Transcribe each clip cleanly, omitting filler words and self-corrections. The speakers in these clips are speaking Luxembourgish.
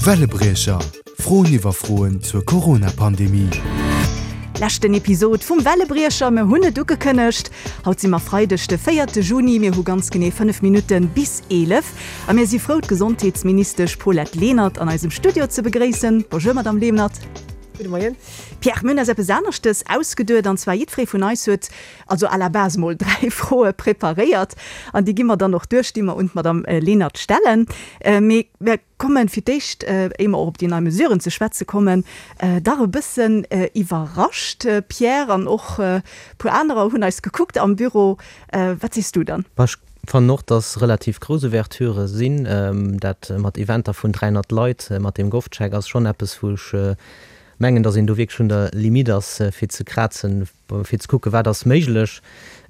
Wellebriecher, Froen iwwer Froen zur Corona-Pandemie. Leschten Episod vum Wellebriecher, mir hunn et ugekënnegt. Haut si mer Freideg de véierte Juni, mir hu ganz genee 5 Minutte bis 11 a mir si frou d'Gesondheetsministesch Paulette Lenert an eisem Studio ze begréissen. Bonjour Madame Lenert. Gudde Moien. Pierre, mir hunn eis eppes aneschtes ausgeduet an zwar jiddweree vun eis huet also à la base mol 3 Froe preparéiert an déi gi mer dann och duerch, déi mer un d'Madame Lenert stellen. Mee mir kommen fir d'éischt, éier mer och op déi nei Mesuren ze schwätze kommen, dach e bëssen iwwerrascht, Pierre, an och e puer anerer hunn eis gekuckt am Büro. Wat sees du dann? Ech fannen och, dass relativ grouss Ouverturë sinn. Dat mat Eventer vun 300 Leit mat deem GovCheck ass schonn eppes, wou ech mengen, dass een do wierklech un der Limite ass, fir ze krazen, fir ze kucken, wat ass méiglech.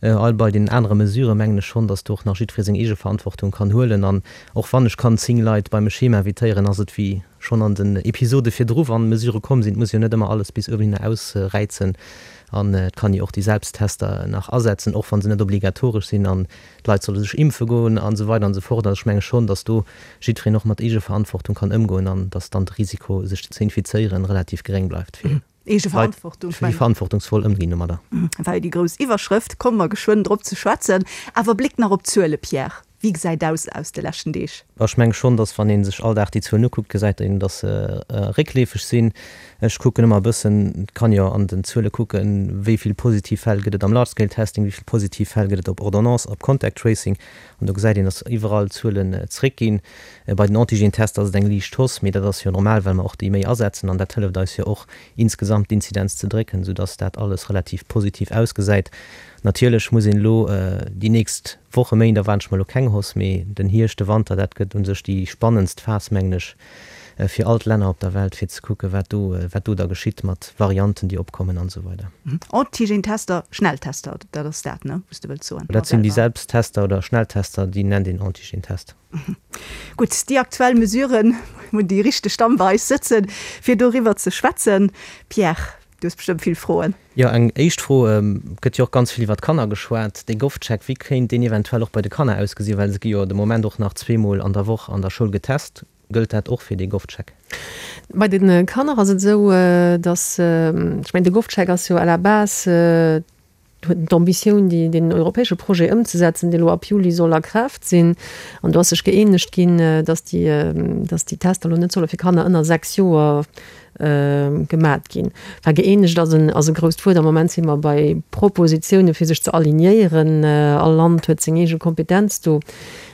All bei den anere Mesurë mengen ech schonn, dass do och nach jiddweree seng eege Verantwortung kann huelen. An och wann ech kann 10 Leit bei mech heem invitéieren, ass et wéi schonn an den Episode virdru, wann Mesurë komm sinn, et muss jo net ëmmer alles bis uewenhinner ausräizen. An et kann jo och déi Selbsttester nach asetzen, och wa se net obligatoresch sinn. An d'Leit solle sech impfe goen an esou weider an esou fort. Also ech menge schonn, dass do jiddwereen och mat Eegeverantwortung kann ëmgoen an dass dann de Risiko, sech ze infizéieren, relativ geréng bleift fir. Leit, déi verantwortungsvoll ëmginn domadder. War jo déi grouss Iwwerschrëft, komme mer geschwënn drop ze schwätzen. Awer Bléck nach op d'Zuele, Pierre, wéi gesäit aus aus de leschten Deeg? Ech menge schonn, datt wann ee sech all Dag déi Zuelen ukuckt, gesäit een, datt se réckleefeg sinn. Ech kucken ëmmer e bëssen, et kann jo an den Zuele kucken, wéi vill positiv Fäll gëtt et am Large Scale Testing, wéi vill positiv Fäll gëtt et op Ordonnance, op Contact Tracing. An do gesäit een, datt iwwerall d'Zuelen zréckginn. Bei den Antigen-Tester ass et eng liicht Hausse, mee dat ass jo normal, well mer och déi méi asetzen an dat hëlleft eis jo och insgesamt d'Inzidenz ze drécken, soudass dat alles relativ positiv ausgesäit. Natierlech muss een elo déi nächst Woche, Méint erwaarden ech mer elo keng Hausse, mee den Hierscht, de Wanter, dat gëtt u sech déi spannendst Phas, mengen ech, fir all d'Länner op der Welt, fir ze kucken, wat do, wat do da geschitt mat Varianten, déi opkommen an esou weider. Antigen-Tester, Schnelltester, dat ass dat, ne, wou s de wëlls soen? Dat sinn déi Selbsttester oder Schnelltester, déi nennt een Antigen-Test. Gutt, déi aktuell Mesuren hunn déi richteg Damm bei eis sëtzen, fir doriwwer ze schwätzen. Pierre, du hues bestëmmt vill Froen. Jo, eng éischt Fro, Et gëtt jo och ganz vill iwwer d'Kanner geschwat. Dee GovCheck, wéi kéint deen eventuell och bei de Kanner ausgesinn? Well se gi jo de Moment och nach zweemol an der Woch an der Schoul getest. Gëllt dat och fir dee GovCheck? Bei de Kanner ass et esou, datt, ech mengen, de GovCheck ass jo à la base, huet d'Ambitioun, déi, deen europäesche Projet ëmzesetzen, dee lo ab Juli soll a Kraaft sinn. An do ass sech gëeenegt ginn, datt déi, datt déi Tester lo net solle fir Kanner ënner 6 Joer gemat ginn. Enfin, gëeenegt ass en, ass e grousst Wuert. Am Moment si mer bei Propositiounen, fir sech ze alignéieren. All Land huet seng eege Kompetenz do.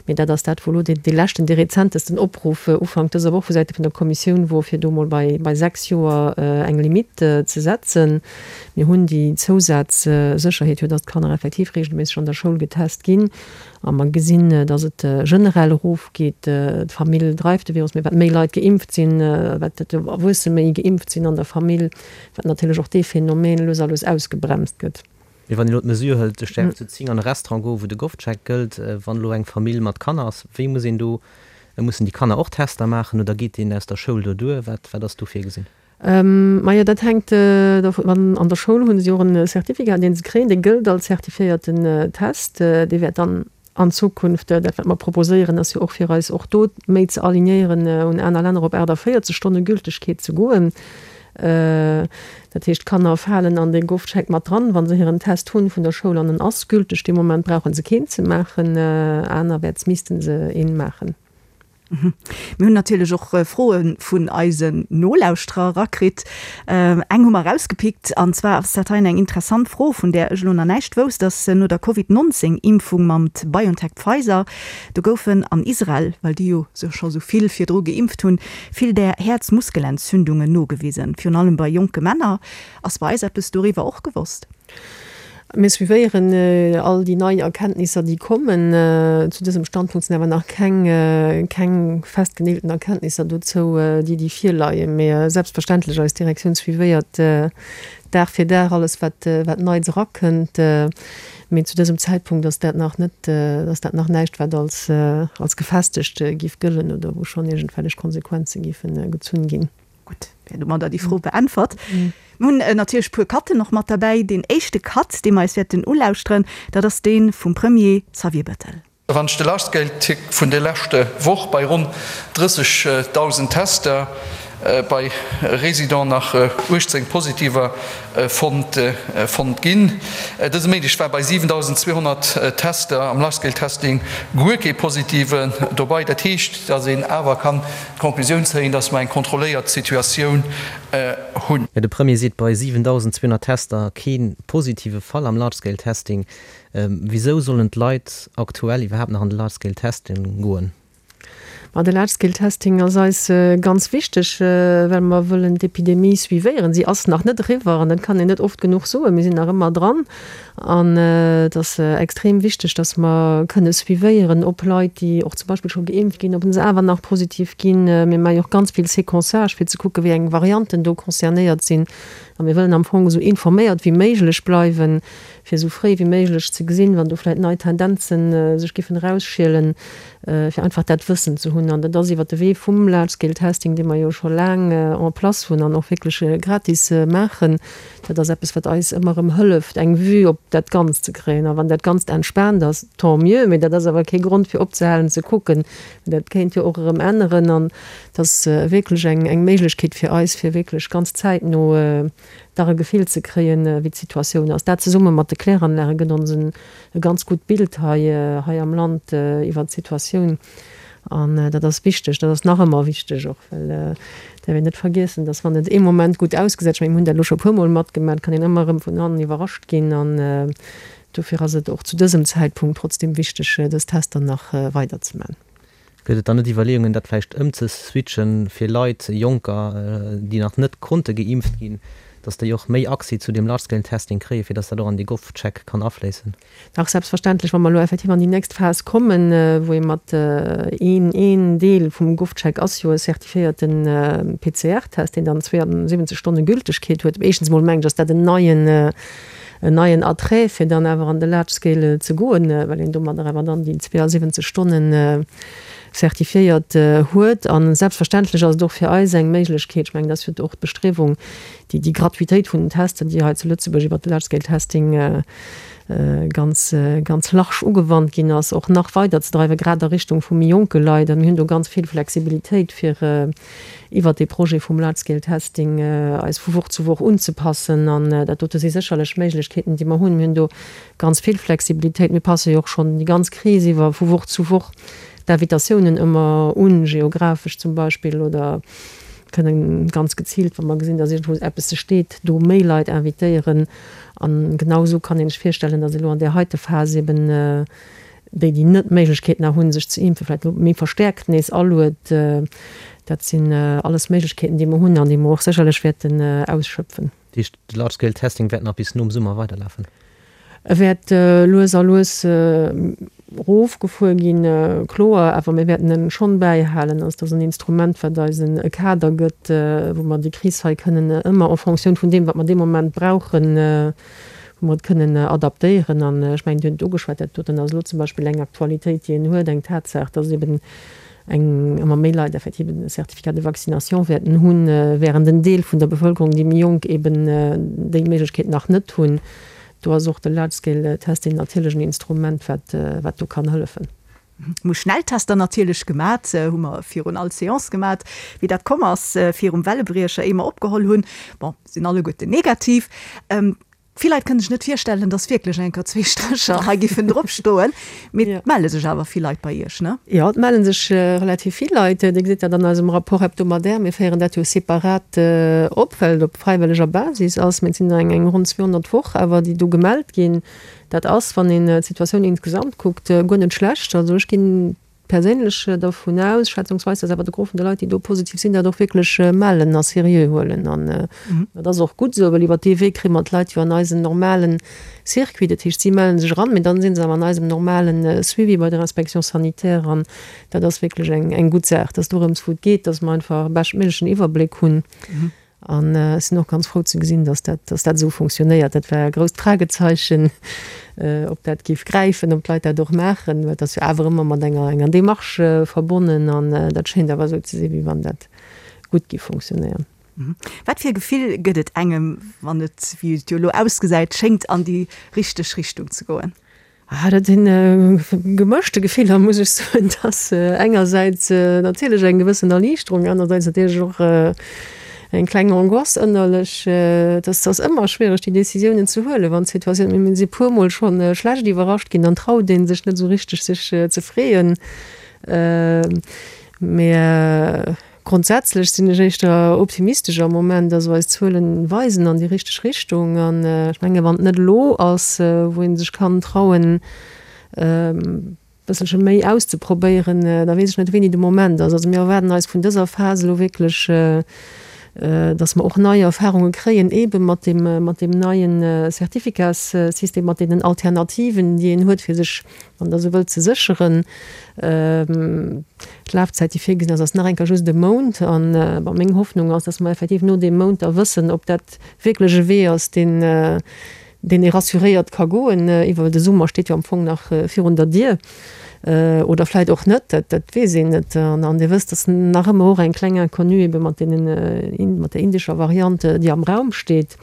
Mee dat ass dat, wou elo dee leschten, dee rezentesten Opruff Ufank dëser Woch vu Säite vun der Kommissioun wor, fir do mol bei, bei 6 Joer eng Limite ze setzen. Mir hunn déi Zousazsécherheet jo, dass d'Kanner effektiv regelméisseg an der Schoul getest ginn. A mer gesinn, dass et generell erofgeet. D'Famill dreift de Virus, mee wat méi Leit geimpft sinn, wat d'Erwuesse méi geimpft sinn an der Famill, wat natierlech och dee Phänomen lues a lues ausgebremst gëtt. Mee wann een elo d'Mesure hëlt, ech däerf zu 10 an e Restaurant goen, wou de GovCheck gëllt, wann elo eng Famill mat Kanner ass, wéi muss een do, mussen déi Kanner och Tester maachen oder geet deen aus der Schoul do duer? Wat, wat ass do virgesinn? Majo, dat hänkt dovun an. An der Schoul hu si och en Certificat, dee se kréien, dee gëllt als zertifiéierten Test. Dee wäert dann an Zukunft, dat wat mer proposéieren, ass jo och fir eis och do méi ze alignéieren un aner Länner, op 48 Stonne Gültegkeet ze goen. Dat heescht, d'Kanner falen an dee GovCheck mat dran, wa se hiren Test hunn vun der Schoul an en ass gülteg. Dee Moment brauche se keen ze maachen, anerwäerts misste se een maachen. Mir hunn natierlech och Froe vun eisen Nolauschterer erakritt. Eng hu mer erausgepickt, an zwar ass dat hei eng interessant Fro, vun där ech elo nach näischt wousst, dass no der Covid 19 Impfung mam BioNTech-Pfizer, do goufen an Israel, well déi jo scho sou vill virdru geimpft hunn, vill där Häerzmuskelentzündungen nogewisen, virun allem bei jonke Männer. Ass bei eis eppes doriwwer och gewosst? Mir suivéieren all déi nei Erkenntnisser, déi kommen. Zu dësem Standpunkt sinn awer nach keng, keng festgeneelten Erkenntnisser dozou, déi, déi virleien. Mee selbstverständlech, eis Direktioun suivéiert Dag fir Dag alles, wat, wat Neits erakënnt. Mee zu dësem Zäitpunkt ass dat nach net, ass dat nach näischt, wat als, als gefestegt géif gëllen oder wou schonn iergendwellech Konsequenze géife gezunn ginn. Gutt, wär domadder déi Fro beäntwert. Mir hunn natierlech e puer Cutten och mat derbäi. Deen éischte Cut, dee mer eis wäerten ulauschteren, dat ass dee vum Premier Xavier Bettel. Wann ech de Large-Scale-Tick vun der leschte Woch bei ronn 30.000 Tester bei Residenten nach 18 Positiver fonnt fonnt ginn. Dëse Méindeg war bei 7.200 Tester am Large-Scale-Testing guer kee Positiven dobei. Dat heescht, datt een awer kann d'Conclusioun zéien, datt mer eng kontrolléiert Situatioun hunn. De Premier seet bei 7.200 Tester kee positive Fall am Large-Scale-Testing. Wisou sollen d'Leit aktuell iwwerhaapt nach an de Large Scale Testing goen? Ma de Large Scale Testing ass eis ganz wichteg, well mer wëllen d'Epidemie suivéieren. Si ass nach net eriwwer an dat kann een net oft genuch soen. Mir sinn nach ëmmer dran an et ass extrem wichteg, datt mer kënne suivéieren, ob Leit, déi och zum Beispill scho geimpft ginn, ob se awer nach positiv ginn. Mir maache jo och ganz vill Séquençage, fir ze kucken, wéi eng Varianten do concernéiert sinn. A mir wëllen am Fong esou informéiert wéi méiglech bleiwen, fir esou fréi wéi méiglech ze gesinn, wann do vläicht nei Tendenzen sech giffen erausschielen, fir einfach dat Wëssen ze hunn. An dat ass iwwert de Wee vum Large Scale Testing, dee mer jo scho laang en place hunn an och wierklech gratis maachen. Dat ass eppes, wat eis ëmmer erëm hëlleft, eng Vue op dat Ganzt ze kréien. A wann dat Ganzt entspaant ass, tant mieux, mee dat ass awer kee Grond fir opzehalen ze kucken. Dat kéint jo och erëm änneren. An et ass wierklech eng Méiglechkeet fir eis, fir wierklech ganz zäitno dach e Gefill ze kréien, wéi d'Situatioun ass. Dat zesumme mat de Kläranlage gëtt ons e ganz gutt Bild hei hei am Land iwwert d'Situatioun. An dat ass wichteg, dat ass nach ëmmer wichteg och, well et däerf een net vergiessen, dass wann et ee Moment gutt ausgesäit, ech mengen, mir hunn dat elo scho e puermol matgemaach, kann een ëmmer erëm vun hannen iwwerrascht ginn. An dofir ass et och zu dësem Zäitpunkt trotzdem wichteg, dës Tester nach weiderzemaachen. Gëtt et dann net Iwwerleeungen, dat vläicht ëmzeswitchen, fir Leit, Jonker, déi nach net konnte geimpft ginn, datt déi och méi Accès zu deem Large-Scale-Testing kréien, fir datt dat och an dee GovCheck kann afléissen? Dach, selbstverständlech. Wa mer elo effektiv an déi nächst Phas kommen, wou ee mat een, een Deel vum GovCheck ass jo e certifiéierte PCR-Test, deen dann 72 Stonne Gültegkeet huet. Éischtens emol mengen ech, ass dat en neien, en neien Attrait, fir dann awer an de Large Scale ze goen, well een domadder awer dann déi 72 Stonnen certifiéiert huet. A selbstverständlech ass et och fir eis eng Méiglechkeet, ech mengen, dat ass jo och d'Bestriewung, déi déi Gratuitéit vun den Testen, déi hei zu Lëtzebuerg iwwert de Large Scale Testing ganz, ganz large ugewannt ginn ass, och nach weiderzedreiwen, grad a Richtung vu méi jonke Leit. A mir hunn do ganz vill Flexibilitéit, fir iwwert dee Projet vum Large Scale Testing eis vu Woch zu Woch unzepassen. An dat dote si sécherlech Méiglechkeeten, déi mer hunn. Mir hunn do ganz vill Flexibilitéit. Mir passe jo och schonn déi ganz Kris iwwer vu Woch zu Woch d'Invitatiounen ëmmer un, geographesch zum Beispill, oder kënnen ganz geziilt, wa mer gesinn, datt iergendwou eppes steet, do méi Leit invitéieren. A genau esou kann een sech virstellen, datt elo an där heite Phas eben déi, déi net d'Méiglechkeet nach hunn, sech ze impfen, vläicht elo méi verstäerkt nees aluet. Dat sinn alles Méiglechkeeten, déi mer hunn an déi mer och sécherlech wäerten ausschöpfen. Dat heescht, de Large Scale Testing wäert nach bis nom Summer weiderlafen? E wäert lues a lues erofgefuer ginn, kloer, awer mir wäerten en schonn bäihalen. Also, et ass en Instrument, wat eis e Kader gëtt, wou mer déi Kris hei kënnen ëmmer en fonction vun deem, wat mer dee Moment brauchen, wou mer et kënnen adaptéieren. An ech mengen, Dir hutt et ugeschwat, dat doten ass elo zum Beispill eng Aktualitéit, déi een huet, eng Tatsaach, dass eben eng ëmmer méi Leit effektiv en Certificat de vaccination wäerten hunn, während en Deel vun der Bevëlkerung, déi méi jonk, eben déi Méiglechkeet nach net hunn. Do ass och de Large-Scale-Testing natierlech en Instrument, wat, wat do kann hëllefen. Hu Schnelltester natierlech gemat, hu mer virun all Seance gemat, wéi dat komm ass virum Wellebriecher, éier mer opgeholl hunn. Bon, sinn alleguerten negativ. Vill Leit kënne sech net virstellen, dass wierklech eng Kéier zwee Strécher hei giffen drop stoen, mee et melle sech awer vill Leit bei Iech, ne? Jo, et melle sech relativ vill Leit. Dir gesitt dat an eisem Rapport hebdomadaire. Mir féieren dat jo separat op, well et op fräiwëlleger Basis ass. Mee et sinn der eng ronn 200 d'Woch awer, déi do gemellt ginn. Dat ass, wann een d'Situatioun insgesamt kuckt, guer net schlecht. Also ech ginn perséinlech dervun aus, schätzungsweis, dass awer de Gros vun de Leit, déi do positiv sinn, dat och wierklech mellen a seriö huelen. An dat ass och gutt esou, well iwwer dee Wee kréie mer d'Leit jo an eisen normale Circuit. Dat heescht, si melle sech eran, mee dann si se awer an eisem normale Suivi bei der Inspection sanitaire. An dat ass wierklech eng gutt Saach, dass dorëms, wou et geet, dass mer einfach e beschtméiglechen Iwwerbléck hunn. An ech sinn och ganz frou ze gesinn, dass dat, dass dat esou fonctionnéiert. Dat war e grousst Fragezeichen, ob dat géif gräifen, ob d'Leit dat och maachen, well et ass jo awer ëmmer mat enger, enger Démarche verbonnen. An dat schéint awer esou ze sinn, wéi wann dat gutt géif fonctionnéieren. Wat fir e Gefill gëtt et engem, wann et, wéi et jo elo ausgesäit, schéngt an déi richteg Richtung ze goen? Ah, dat sinn gemëschte Gefiller, muss ech soen. Et ass engersäits natierlech eng gewëssen Erliichterung, anersäits natierlech och eng kleng Angoisse ënnerlech. Et ass, ass ëmmer schwiereg, déi Decisiounen ze huelen, wann d'Situatioun, mir si puermol scho schlecht iwwerrascht ginn, dann traut ee sech net esou richteg, sech ze freeën. Mee Grondsätzlech sinn ech éischter optimistesch am Moment. Also eis Zuelen weisen an déi richteg Richtung. An ech menge wann et net elo ass, wou ee sech kann trauen e bësselche méi auszeprobéieren, da weess ech net wéini de Moment ass. Also mir erwaarden eis vun dëser Phas elo wierklech, datt mer och nei Erfahrunge kréien, eebe mat deem, mat deem neien Certificatssystem, mat deenen Alternativen, déi een huet, fir sech wann Der esou wëllt, ze sécheren. D'Lafzäit, déi virgesinn ass, ass nach eng Kéier just e Mount. An, bon, meng Hoffnung ass, dass mer effektiv no deem Mount da wëssen, ob dat wierklech e Wee ass, deen, deen ee rassuréiert ka goen. Iwwer de Summer steet jo am Fong nach virun der Dier. Oder vläicht och net, dat, dat weess een net. An Dir wësst, dass nach ëmmer och eng kleng Inconnue ebe mat deenen, mat der indescher Variant, déi am Raum steet.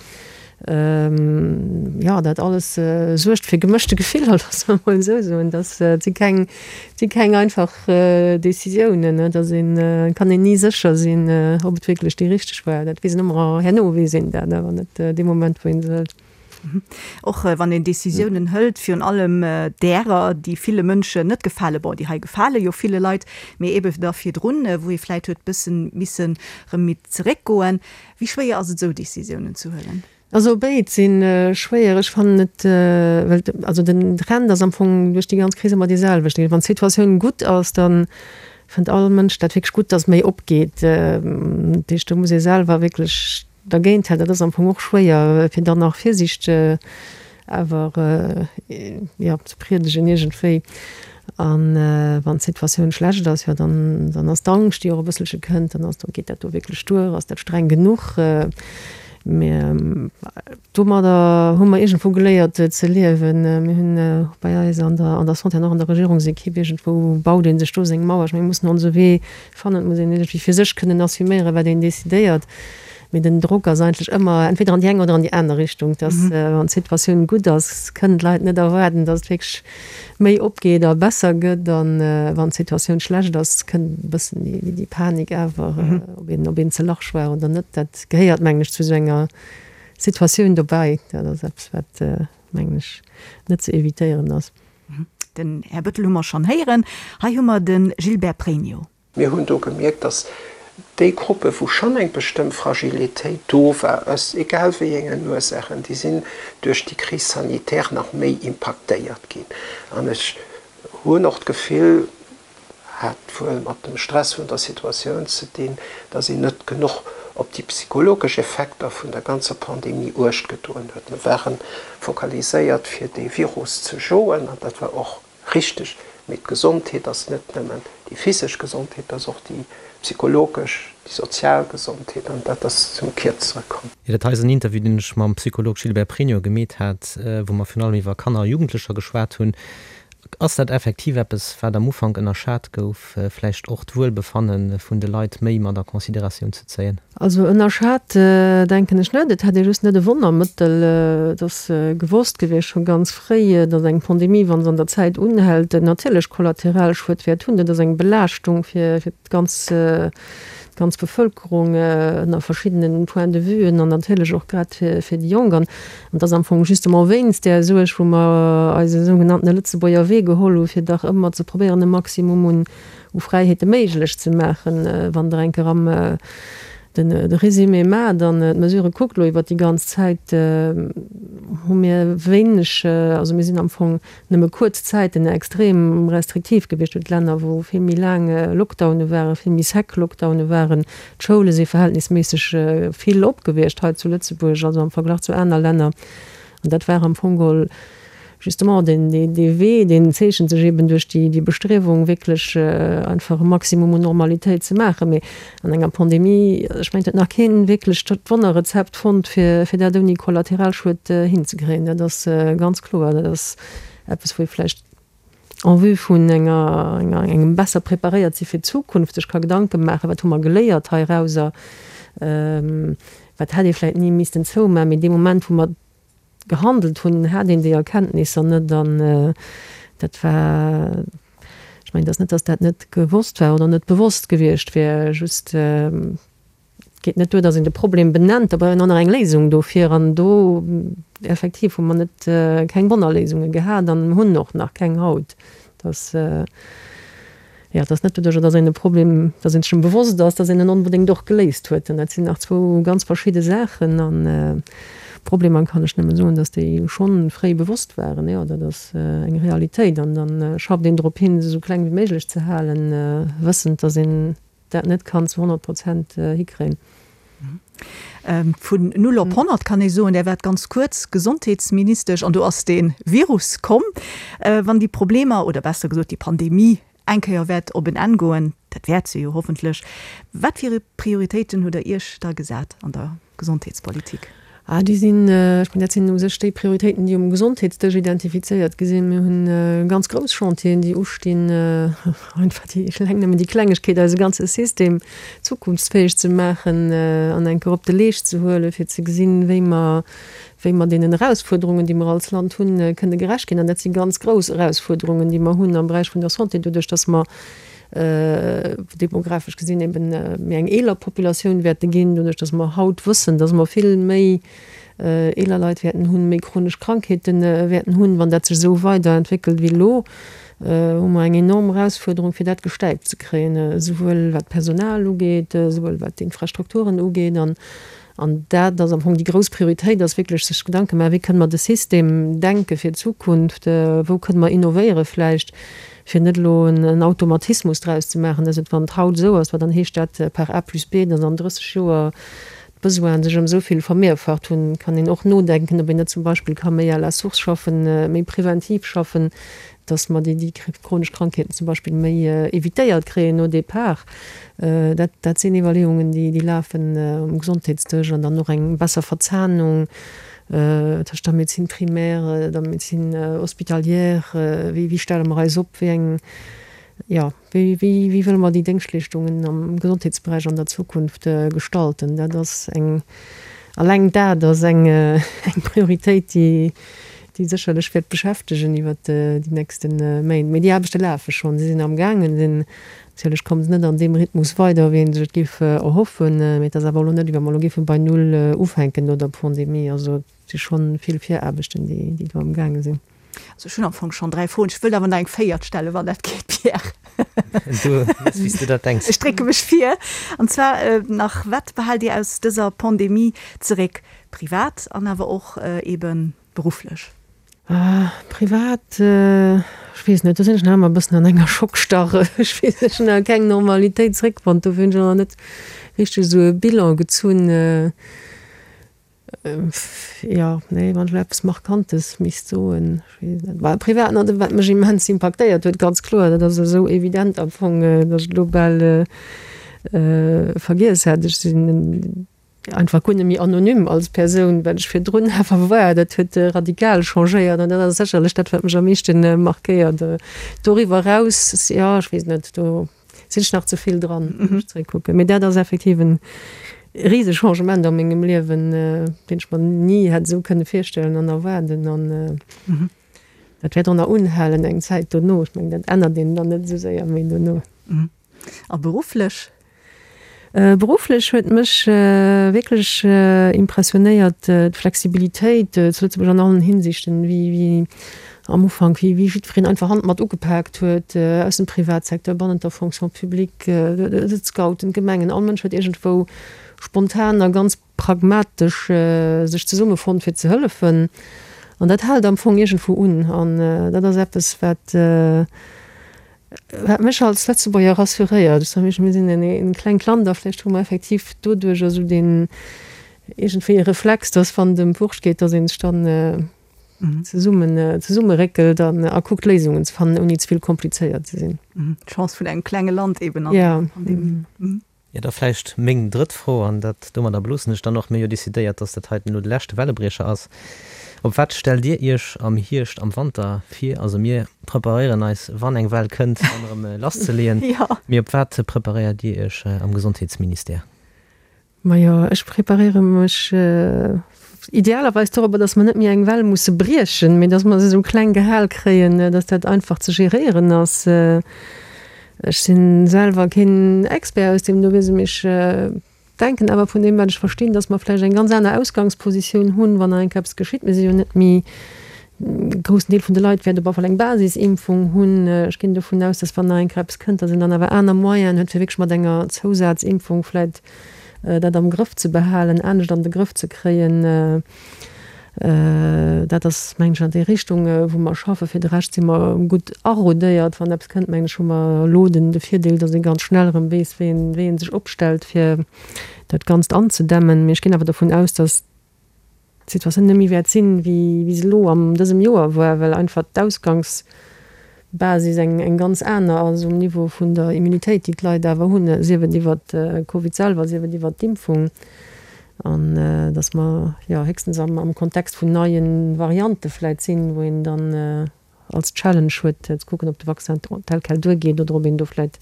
Jo, dat alles suergt fir gemëschte Gefiller, loosse mer emol esou soen. Dat si keng, si keng einfach Decisiounen. Et ass een, kann een ni sécher sinn, ob et wierklech déi richteg war. Dat weess een ëmmer herno, weess een dat, awer net dee Moment, wou ee se hëlt. Och wann een Decisiounen hëlt, virun allem därer, déi ville Mënschen net gefalen, bon, déi hei gefale jo ville Leit, mee ebe da virdrun, wou ee vläicht huet bëssen missen erëm méi zeréckgoen. Wéi schwéier ass et esou Decisiounen ze huelen? Also béid si schwéier. Ech fannen et, well also den Trend ass am Fong duerch déi ganz Kris ëmmer dee selwechten. Wann d'Situatioun gutt ass, da fënnt all Mënsch dat wierklech gutt, datt méi opgeet. Dat heescht, do muss ee selwer wierklech dergéint halen. Dat ass am Fong och schwéier, fir dann nach Virsiicht awer jo ze priedegen iergendwéi. An wann d'Situatioun schlecht ass, jo dann dann ass d'Angscht déi och e bësselche kënnt, dann ass do, geet dat do wierklech duer, ass dat streng genuch? Mä domadder hu mer iergendwou geléiert ze liewen. Mir hunn och bei eis an der an der Santé an och an der Regierungsekipp, iergendwou baut ee sech do seng Mauer. Ech menge mir mussen onse Wee fannen, et muss een iergendwéi fir sech kënnen assuméieren, wat een decidéiert. Mee den Drock ass eigentlech ëmmer entweder an déi eng oder an déi aner Richtung, dass wann d'Situatioun gutt ass, kënnen d'Leit net erwaarden, dass et wierklech méi opgeet a besser gëtt. A wann d'Situatioun schlecht ass, kënnt e bëssen déi Panik awer, ob een, ob een ze large war oder net. Dat gehéiert, mengen ech, zu esou enger Situatioun dobäi. Dat ass eppes, wat, mengen ech, net ze evitéieren ass. Den Här Bettel hu mer schonn héieren. Hei hu mer de Gilbert Pregno. Mir hunn do gemierkt, dass déi Gruppe wou schonn eng bestëmmt Fragilitéit do war, aus egal wéi engen Ursaachen, déi sinn duerch déi Crise sanitaire nach méi impaktéiert ginn. An ech hunn och d'Gefill, hat wuel mat dem Stress vun der Situatioun ze dinn, dass een net genuch op déi psychologesch Effekter vun der ganzer Pandemie Uecht gedoen huet. Mir ware focaliséiert fir dee Virus ze joen an dat war och Richteg, mee d'Gesondheet ass net nëmmen déi physesch Gesondheet, et ass och déi psychologesch, déi sozial Gesondheet an dat ass zum Kierzere komm. Jo, dat hei ass en Interview, deen ech mam Psycholog Gilbert Pregno gemeet hat, wou mer virun allem iwwer Kanner a Jugendlecher geschwat hunn. Ass dat effektiv eppes, wat am Ufank ënnerschat gouf, vläicht och d'Wuelbefanne vun de Leit méi mat a Consideratioun ze zéien? Also ënnerschat denken ech net. Et hätt ee just net e Wonnermëttel. Et ass gewosst gewiescht scho ganz fréi, datt eng Pandemie, wa se an der Zäit unhält, natierlech Kollateralschued wäert hunn. Dat ass eng Belaaschtung fir d'ganz d'ganz Bevëlkerung ënner verschiddene Point de vuen an natierlech och grad fir déi Jonk. An et ass am Fong justement wéinst där Suerg, wou mer eise sougenanntene Lëtzebuerger Wee geholl hu fir dach ëmmer ze probéieren e Maximum un u Fräiheete méiglech ze maachen. Wann Der eng Kéier am de Résumé maacht an d'Mesurë kuckt elo iwwert déi ganz Zäit, hu mir wéineg, also mir sinn am Fong nëmme kuerz Zäiten extrem restriktiv gewiescht. Et huet Länner, wou vill méi laang Lockdowne waren, vill méi sec Lockdowne waren. D'Schoule si verhältnisméisseg vill op gewiescht hei zu Lëtzebuerg, also am Verglach zu aner Länner. An dat war am Fong geholl Justement, deen, dee Wee, deen zeechent sech eben duerch déi, déi Bestriewung, wierklech einfach e Maximum un Normalitéit ze maachen. Mee an enger Pandemie, ech mengen, et huet nach keen wierklech d'Wonnerrezept fonnt, fir, fir dat ouni Kollateralschued hinzekréien. Dat ass ganz kloer. Dat ass eppes, wou ee vläicht en vue vun enger, enger, engem besser preparéiert si fir d'Zukunft sech ka Gedanke maachen, wat hu mer geléiert heirauser, wat hätt ee vläicht ni missten zoumaachen. Mee dee Moment, wou mer. gehandelt hunn, hat een déi Erkenntnisser net an dat war, ech mengen, et ass net, datt dat net gewosst war oder net bewosst gewiescht wär, just et geet net duer, datt een de Problem benennt, da brauch een och nach eng Léisung dofir an do effektiv hu mer net keng Wonnerléisunge gehat an hunn och nach keng haut. Dass, jo, et ass net doduercher, dass een e Problem, dass een sech em bewosst ass, dass een en onbedéngt och geléist huet. An dat sinn nach zwou ganz verschidde Saachen. An Problemer kann ech nëmme soen, dass déi schonn fréi bewosst waren. Jo, dat ass eng Realitéit. An da schafft een drop hin, se esou kleng wéi méiglech ze halen, wëssend, dass een dat net kann zu 100 Prozent hikréien. Vun null op 100 kann ee soen, Där waart ganz kuerz Gesondheetsministesch an do ass dee Virus komm. Wann déi Problemer, oder besser gesot déi Pandemie eng Kéier wäert op en Enn goen, dat wäert se jo hoffentlech, wat fir Prioritéiten hutt Der Iech da gesat an der Gesondheetspolitik? Ah, déi sinn, ech mengen, dat sinn u sech déi Prioritéiten, déi um Gesondheetsdësch identifizéiert gi sinn. Mir hunn ganz grouss Chantieren, déi ustinn, einfach déi, eleng nëmmen déi Klengegkeet, eise ganze System zukunftsfäeg ze maachen an eng Kéier op de Leescht ze huelen, fir ze gesinn, wéi mer, wéi mer deenen Erausfuerderungen, déi mer als Land hunn, kënne gerecht ginn. An dat si ganz grouss Erausfuerderungen, déi mer hunn am Beräich vun der Santé, doduerch dass mer demografesch gesinn eben méi eng eeler Populatioun wäerte ginn, doduerch datt mer haut wëssen, datt mer vill méi eeler Leit wäerten hunn, méi chronesch Krankheete wäerten hunn. Wann dat sech esou weiderentwéckelt wéi elo, hu mer eng enorm Erausfuerderung, fir dat gestäipt ze kréien, esouwuel wat d'Personal ugeet, esouwuel wat d'Infrastrukturen ugeet. An dat ass am Fong déi grouss Prioritéit, ass wierklech sech Gedanke maachen, wéi kënne mer de System denke fir d'Zukunft, wou kënne mer innovéiere vläicht, fir net elo en Automatismus draus ze maachen, dass et, wann et haut esou ass, well dann heescht dat par A plus B, dass an 30 Joer d'Besoinen sech ëm esou vill vermehrfacht hunn. Kann een och nodenken, ob een net zum Beispill ka méi à la source schaffen, méi preventiv schaffen, dass mer déi chronesch Krankheeten zum Beispill méi évitéiert kréien au départ. Dat, dat sinn Iwwerleeungen, déi, déi lafen um Gesondheetsdësch an dann och eng besser Verzahnung tëscht der Médecine primaire, der Médecine hospitalière. Wéi, wéi stelle mer eis op? Wéi eng, jo, wéi, wéi, wéi wëlle mer déi Déngschtleeschtungen am Gesondheetsberäich an der Zukunft gestalten? Dat ass eng, alleng dat ass eng, eng Prioritéit, déi, déi sécherlech wäert beschäftegen iwwert déi nächste Méint. Mee déi Aarbechte lafe schonn, si sinn amgaangen. Sinn natierlech kommen se net an deem Rhythmus weider, wéi ee sech et géif erhoffen. Mee et ass awer elo net, wéi wa mer elo géife bei Null ufänken no der Pandemie. Also et si scho vill Viraarbechten, déi do amgaange sinn. Also ech hunn am Fong schonn 3 Froen. Ech wëllt awer nach eng véiert stellen, wann dat geet, Pierre. Du méchs, wéi s du dat denks. Ech drécke mech vir. An zwar nach, Wat behaalt Dir aus dëser Pandemie zeréck, privat an awer och eeben Berufflech? Privat, ech weess net, do sinn ech nach ëmmer e bëssen an enger Schockstarre. Ech weess net, ech hunn nach keng Normalitéit zréckfonnt, dofir hunn ech och nach net richteg esou e Bilan gezunn. Jo, nee, wann ech elo eppes Markantes misst soen, ech weess net. Bah, privat, na, wat mech immens impaktéiert huet, ganz kloer, dat ass esou evident am Fong, datt ech et elo bal vergiess hat, ech sinn einfach guer net méi anonym als Persoun, wat ech virdrun awer war. Dat huet radikal changéiert an dat ass sécherlech dat, wat mech am meeschten markéiert. Doriwwer eraus, jo, ech weess net, do sinn ech nach ze vill dran, wann ech zeréckkucken. Mee dat ass effektiv e rise Changement a mengem Liewen, deen ech mer ni hätt esou kënne virstellen an erwaarden. An dat wäert och nach unhalen eng Zäit dono. Ech mengen, dat ännert een dann net esou séier méi dono. A berufflech? Berufflech huet mech wierklech impressionéiert d'Flexibilitéit zu Lëtzebuerg an allen Hinsichten, wéi am Ufank, wéi jiddwereen einfach Hand mat ugepaakt huet, aus dem Privatsecteur, bannent der Fonction publique, d'Scouten, d'Gemengen, all Mënsch huet iergendwou spontan a ganz pragmatesch sech zesummefonnt fir ze hëllefen. An dat hält am Fong iergendwou un. An dat ass eppes, wat Wat mech als Lëtzebuerger rassuréiert, ech soe mir sinn en klengt Land a vläicht hu mer effektiv doduerch esou deen iergendwéi e Reflex, datt wann et ëm d'Wurscht geet, datt ee sech dann zesummen zesummeréckelt an a kuckt Léisungen ze fannen, ouni ze vill komplizéiert ze sinn. D'Chance vun engem klenge Land eben an der Pandemie. Jo, da vläicht meng drëtt Fro, an dat, domadder beloossen ech dann och. Mir hu jo decidéiert, dass dat heiten elo de leschte Wellebriecher ass. Op wat stellt Dir Iech am Hierscht, am Wanter vir? Also mir preparéieren eis, wann eng Well kënnt, dann erëm lasszeleeën. Mee op wat preparéiert Dir Iech am Gesondheetsministère? Majo, ech preparéiere mech. Idealerweis dorobber, datt mer net méi eng Well musse briechen, mee datt mer se esou kleng gehal kréien, datt dat einfach ze geréieren ass. Ech si selwer keen Expert aus deem do Wiese, mee ech denken awer vun deem, wat ech verstinn, datt mer vläicht eng ganz aner Ausgangspositioun hunn, wann nach eng Kéier eppes geschitt. Mir si jo net méi, e groussen Deel vun de Leit wäert op alle Fall eng Basisimpfung hunn. Ech ginn dovun aus, datt wann nach eng Kéier eppes kënnt, datt een dann awer aner Moyenen huet, fir wierklech mat enger Zousazimpfung vläicht dat am Grëff ze behalen, anescht an de Grëff ze kréien. Dat ass, mengen ech, an déi Richtung, wou mer schaffen. Fir de Rescht si mer gutt arodéiert. Wann eppes kënnt, mengen ech, hu mer elo den de Virdeel, datt ee ganz schnell erëm weess, wéi een, wéi ee sech opstellt, fir dat Ganzt anzedämmen. Mee ech ginn awer dovun aus, datt d'Situatioun net méi wäert sinn, wéi wéi se elo an dësem Joer war, well einfach d'Ausgangsbasis eng eng ganz aner ass um Niveau vun der Immunitéit, déi d'Leit awer hunn, sief et iwwert de Covid selwer, sief et iwwert d'Impfung. An datt mer, jo, héchstens am am Kontext vun neie Variante vläit sinn, wou een dann als Challenge huet, ze kucken, ob de Vaccin tel quel duergeet oder ob een do vläit,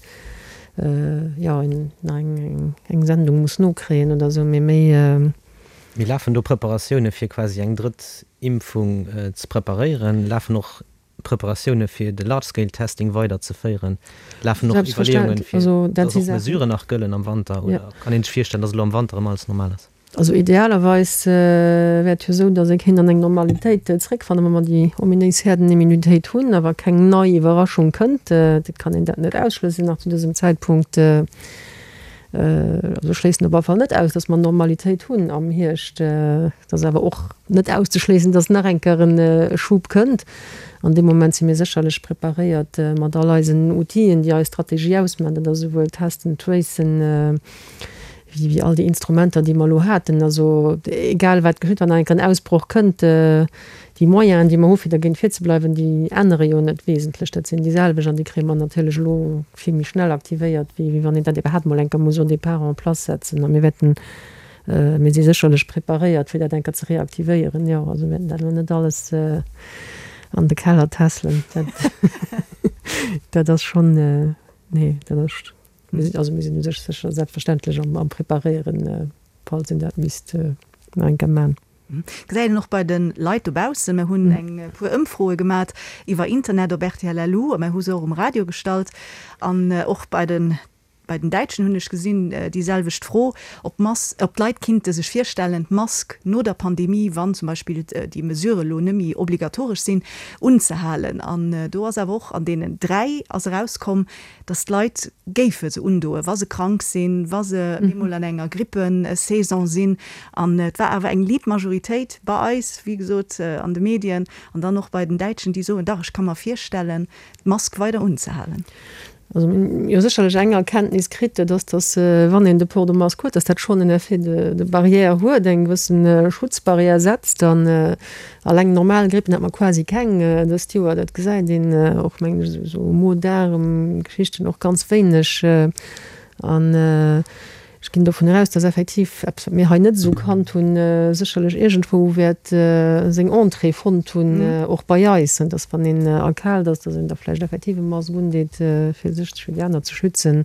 jo, nach eng eng Sendung muss nokréien oder esou. Mee méi. Mee lafen do Preparatioune fir quasi eng drëtt Impfung ze preparéieren? Lafen och Preparatioune fir de Large Scale Testing weider ze féieren? Lafen och Iwwerleeungen, fir datt och Mesuren nach gëllen am Wanter? Oder kann een sech virstellen, datt elo am Wanter erëm alles normal ass? Also idealerweis wär et jo esou, datt ee kéint an eng Normalitéit zréckfannen, wa mer déi ominéis Herdenimmunitéit hunn, a wa keng nei Iwwerraschung kënnt. Et kann een dat net ausschlëssen nach zu dësem Zäitpunkt. Also ech schléissen op alle Fall net aus, datt mer Normalitéit hunn am Hierscht. Et ass awer och net auszeschléissen, datt nach eng Kéier e Schub kënnt. An deem Moment si mir sécherlech preparéiert mat all eisen Outile, déi eis Strategie ausmachen. Dat ass esouwuel Testen, Tracen, wéi all déi Instrumenter, déi mer elo haten. Also egal wat geschitt, wann nach eng Kéier en Ausbroch kënnt, déi Moyenen, déi mer hu fir dergéint virzebleiwen, déi ännere jo net wesentlech. Dat sinn déi selwecht an déi kréie mer natierlech elo vill méi schnell aktivéiert, wéi wann een dat iwwerhaapt mol eng Kéier muss au départ en place setzen. A mir wäerten, mir si sécherlech preparéiert, fir dat eng Kéier ze reaktivéieren. Jo, also mir wäerten dat elo net alles an de Keller tässelen. Dat, dat ass schonn, nee, dat ass, mir sinn, also mir sinn u sech sécher selbstverständlech am, am Preparéieren, falls een dat misst nach eng Kéier man. Gesäit een och bei de Leit dobaussen. Mir hunn eng puer Ëmfroe gemat iwwer Internet op rtl LU a mir hu se och um Radio gestallt. An och bei den bei den Däitschen hunn ech gesinn déi selwecht Fro, ob d'Mas ob d'Leit kinnte sech virstellen, d'Mask no der Pandemie, wann zum Beispill déi Mesurë lo net méi obligatoresch sinn, unzehalen. An do ass awer och an deenen 3 ass erauskomm, dass d'Leit géife se undoen, wa se krank sinn, wa se eemol an enger Grippesaison sinn. An et war awer eng liit Majoritéit bei eis, wéi gesot an de Medien an dann och bei den Däitschen, déi soen, dach, ech ka mer virstellen, d'Mask weider unzehalen. Also mir hunn jo sécherlech eng Erkenntnis kritt, dat ass, dass wann een de Port de masque huet, dass dat schonn en Effet de barrière huet, eng gewëssen Schutzbarrière setzt. An Alleng normal Grippen hat mer quasi keng dëst Joer, dat gesäit een och mengen ech esou Mo-Daarm-Geschichten och ganz wéineg. An ech ginn dovun aus, dass effektiv eppes wat mir hei net esou kannt hunn, sécherlech iergendwou wäert seng Entrée fonnt hunn, och bei eis, dass wann een erkaalt ass, dass een da vläicht effektiv e Mask undeet fir sech, fir déi aner ze schützen.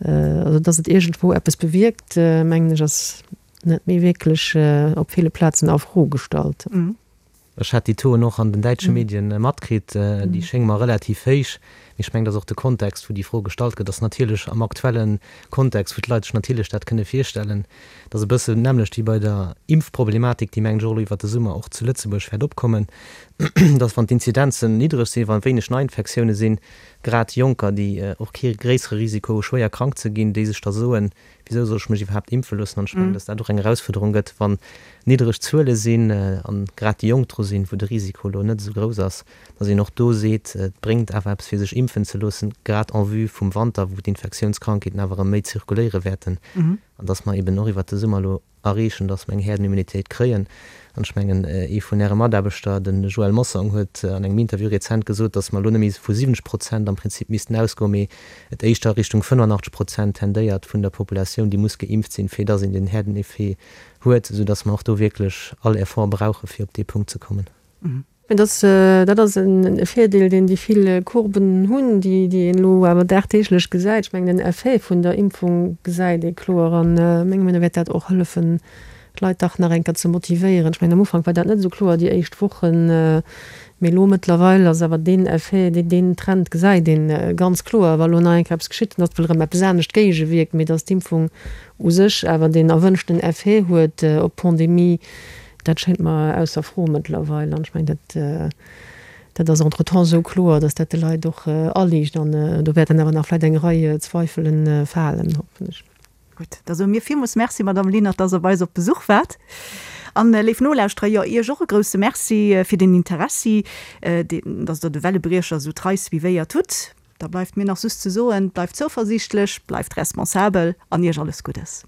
Also dass et iergendwou eppes bewierkt, mengen ech ass net méi wierklech op ville Plazen a Fro gestallt. Ech hat déi Tauxen och an den däitsche Medien matkritt. Déi schénge mer relativ héich. Mee ech mengen, dass och de Kontext, wou déi Fro gestallt gëtt, ass natierlech am aktuelle Kontext, wou d'Leit sech natierlech dat kënne virstellen. Dat ass e bësse d'nämmlecht wéi bei der Impfproblematik, déi, mengen ech, och elo iwwert de Summer och zu Lëtzebuerg wäert opkommen, dass, wann d'Inzidenzen niddreg sinn, wa wéineg Neiinfektioune sinn, grad Jonker, déi och kee gréissere Risiko hu schwéier krank ze ginn, déi sech da soen, Wisou soll ech mech iwwerhaapt impfe loossen? An ech mengen, datt dat och eng Erausfuerderung gëtt, wann niddereg Zuele sinn an grad déi Jonk dru sinn, wou de Risiko elo net esou grouss ass, datt een och do seet, et bréngt awer eppes fir sech impfen ze loossen, grad en vue vum Wanter, wou d'Infektiounskrankheeten awer erëm méi zirkuléiere wäerten, an datt mer eben och iwwert de Summer elo erreechen, dass mer eng Herdenimmunitéit kréien. An ech mengen, ee vun Äre Mataarbechter, de Joël Mossong, huet an engem Interview rezent gesot, dass mer elo net méi vu 70 Prozent am Prinzip missten ausgoen, mee et éischter Richtung 85 Prozent tendéiert vun der Populatioun, déi muss geimpft sinn, fir dass een den Herdeneffet huet, soudass mer och do wierklech all Effort brauchen, fir op dee Punkt ze kommen. Mä dass, dat ass e Virdeel, deen déi vill Courben hunn, déi een elo awer dagdeeglech gesäit. Ech mengen, den Effet vun der Impfung gesäit ee kloer. A menge Meenung no wäert dat och hëllefen, d'Leit dach nach eng Kéier ze motivéieren. Ech mengen, am Ufank war dat net esou kloer, déi éischt Wochen, mee elo mëttlerweil ass awer deen Effet, deen Trend gesäit ee ganz kloer. Wa elo nach eng Kéier eppes geschitt, dann ass wuel erëm eppes anescht géigewierkt, mee datt d'Impfung u sech awer deen erwënschten Effet huet op d'Pandemie, dat schéngt mer ausser Fro mëttlerweil. An ech mengen, dat, dat ass entretemps esou kloer, datt dat de Leit och aliicht. An do wäerten awer nach vläicht eng Rei Zweifele falen, hoffen ech. Gutt, da soe mir villmools Merci, Madamm Lenert, dass Der bei eis op Besuch waart. An, léif Nolauschterer, jo, Iech och e grousse Merci fir den Interessi, deen, dass Der de Wellebriecher esou trei suivéiert hutt. Da bleift mir nach just ze soen, Bleift zouversiichtlech, bleift responsabel an Iech alles Guddes.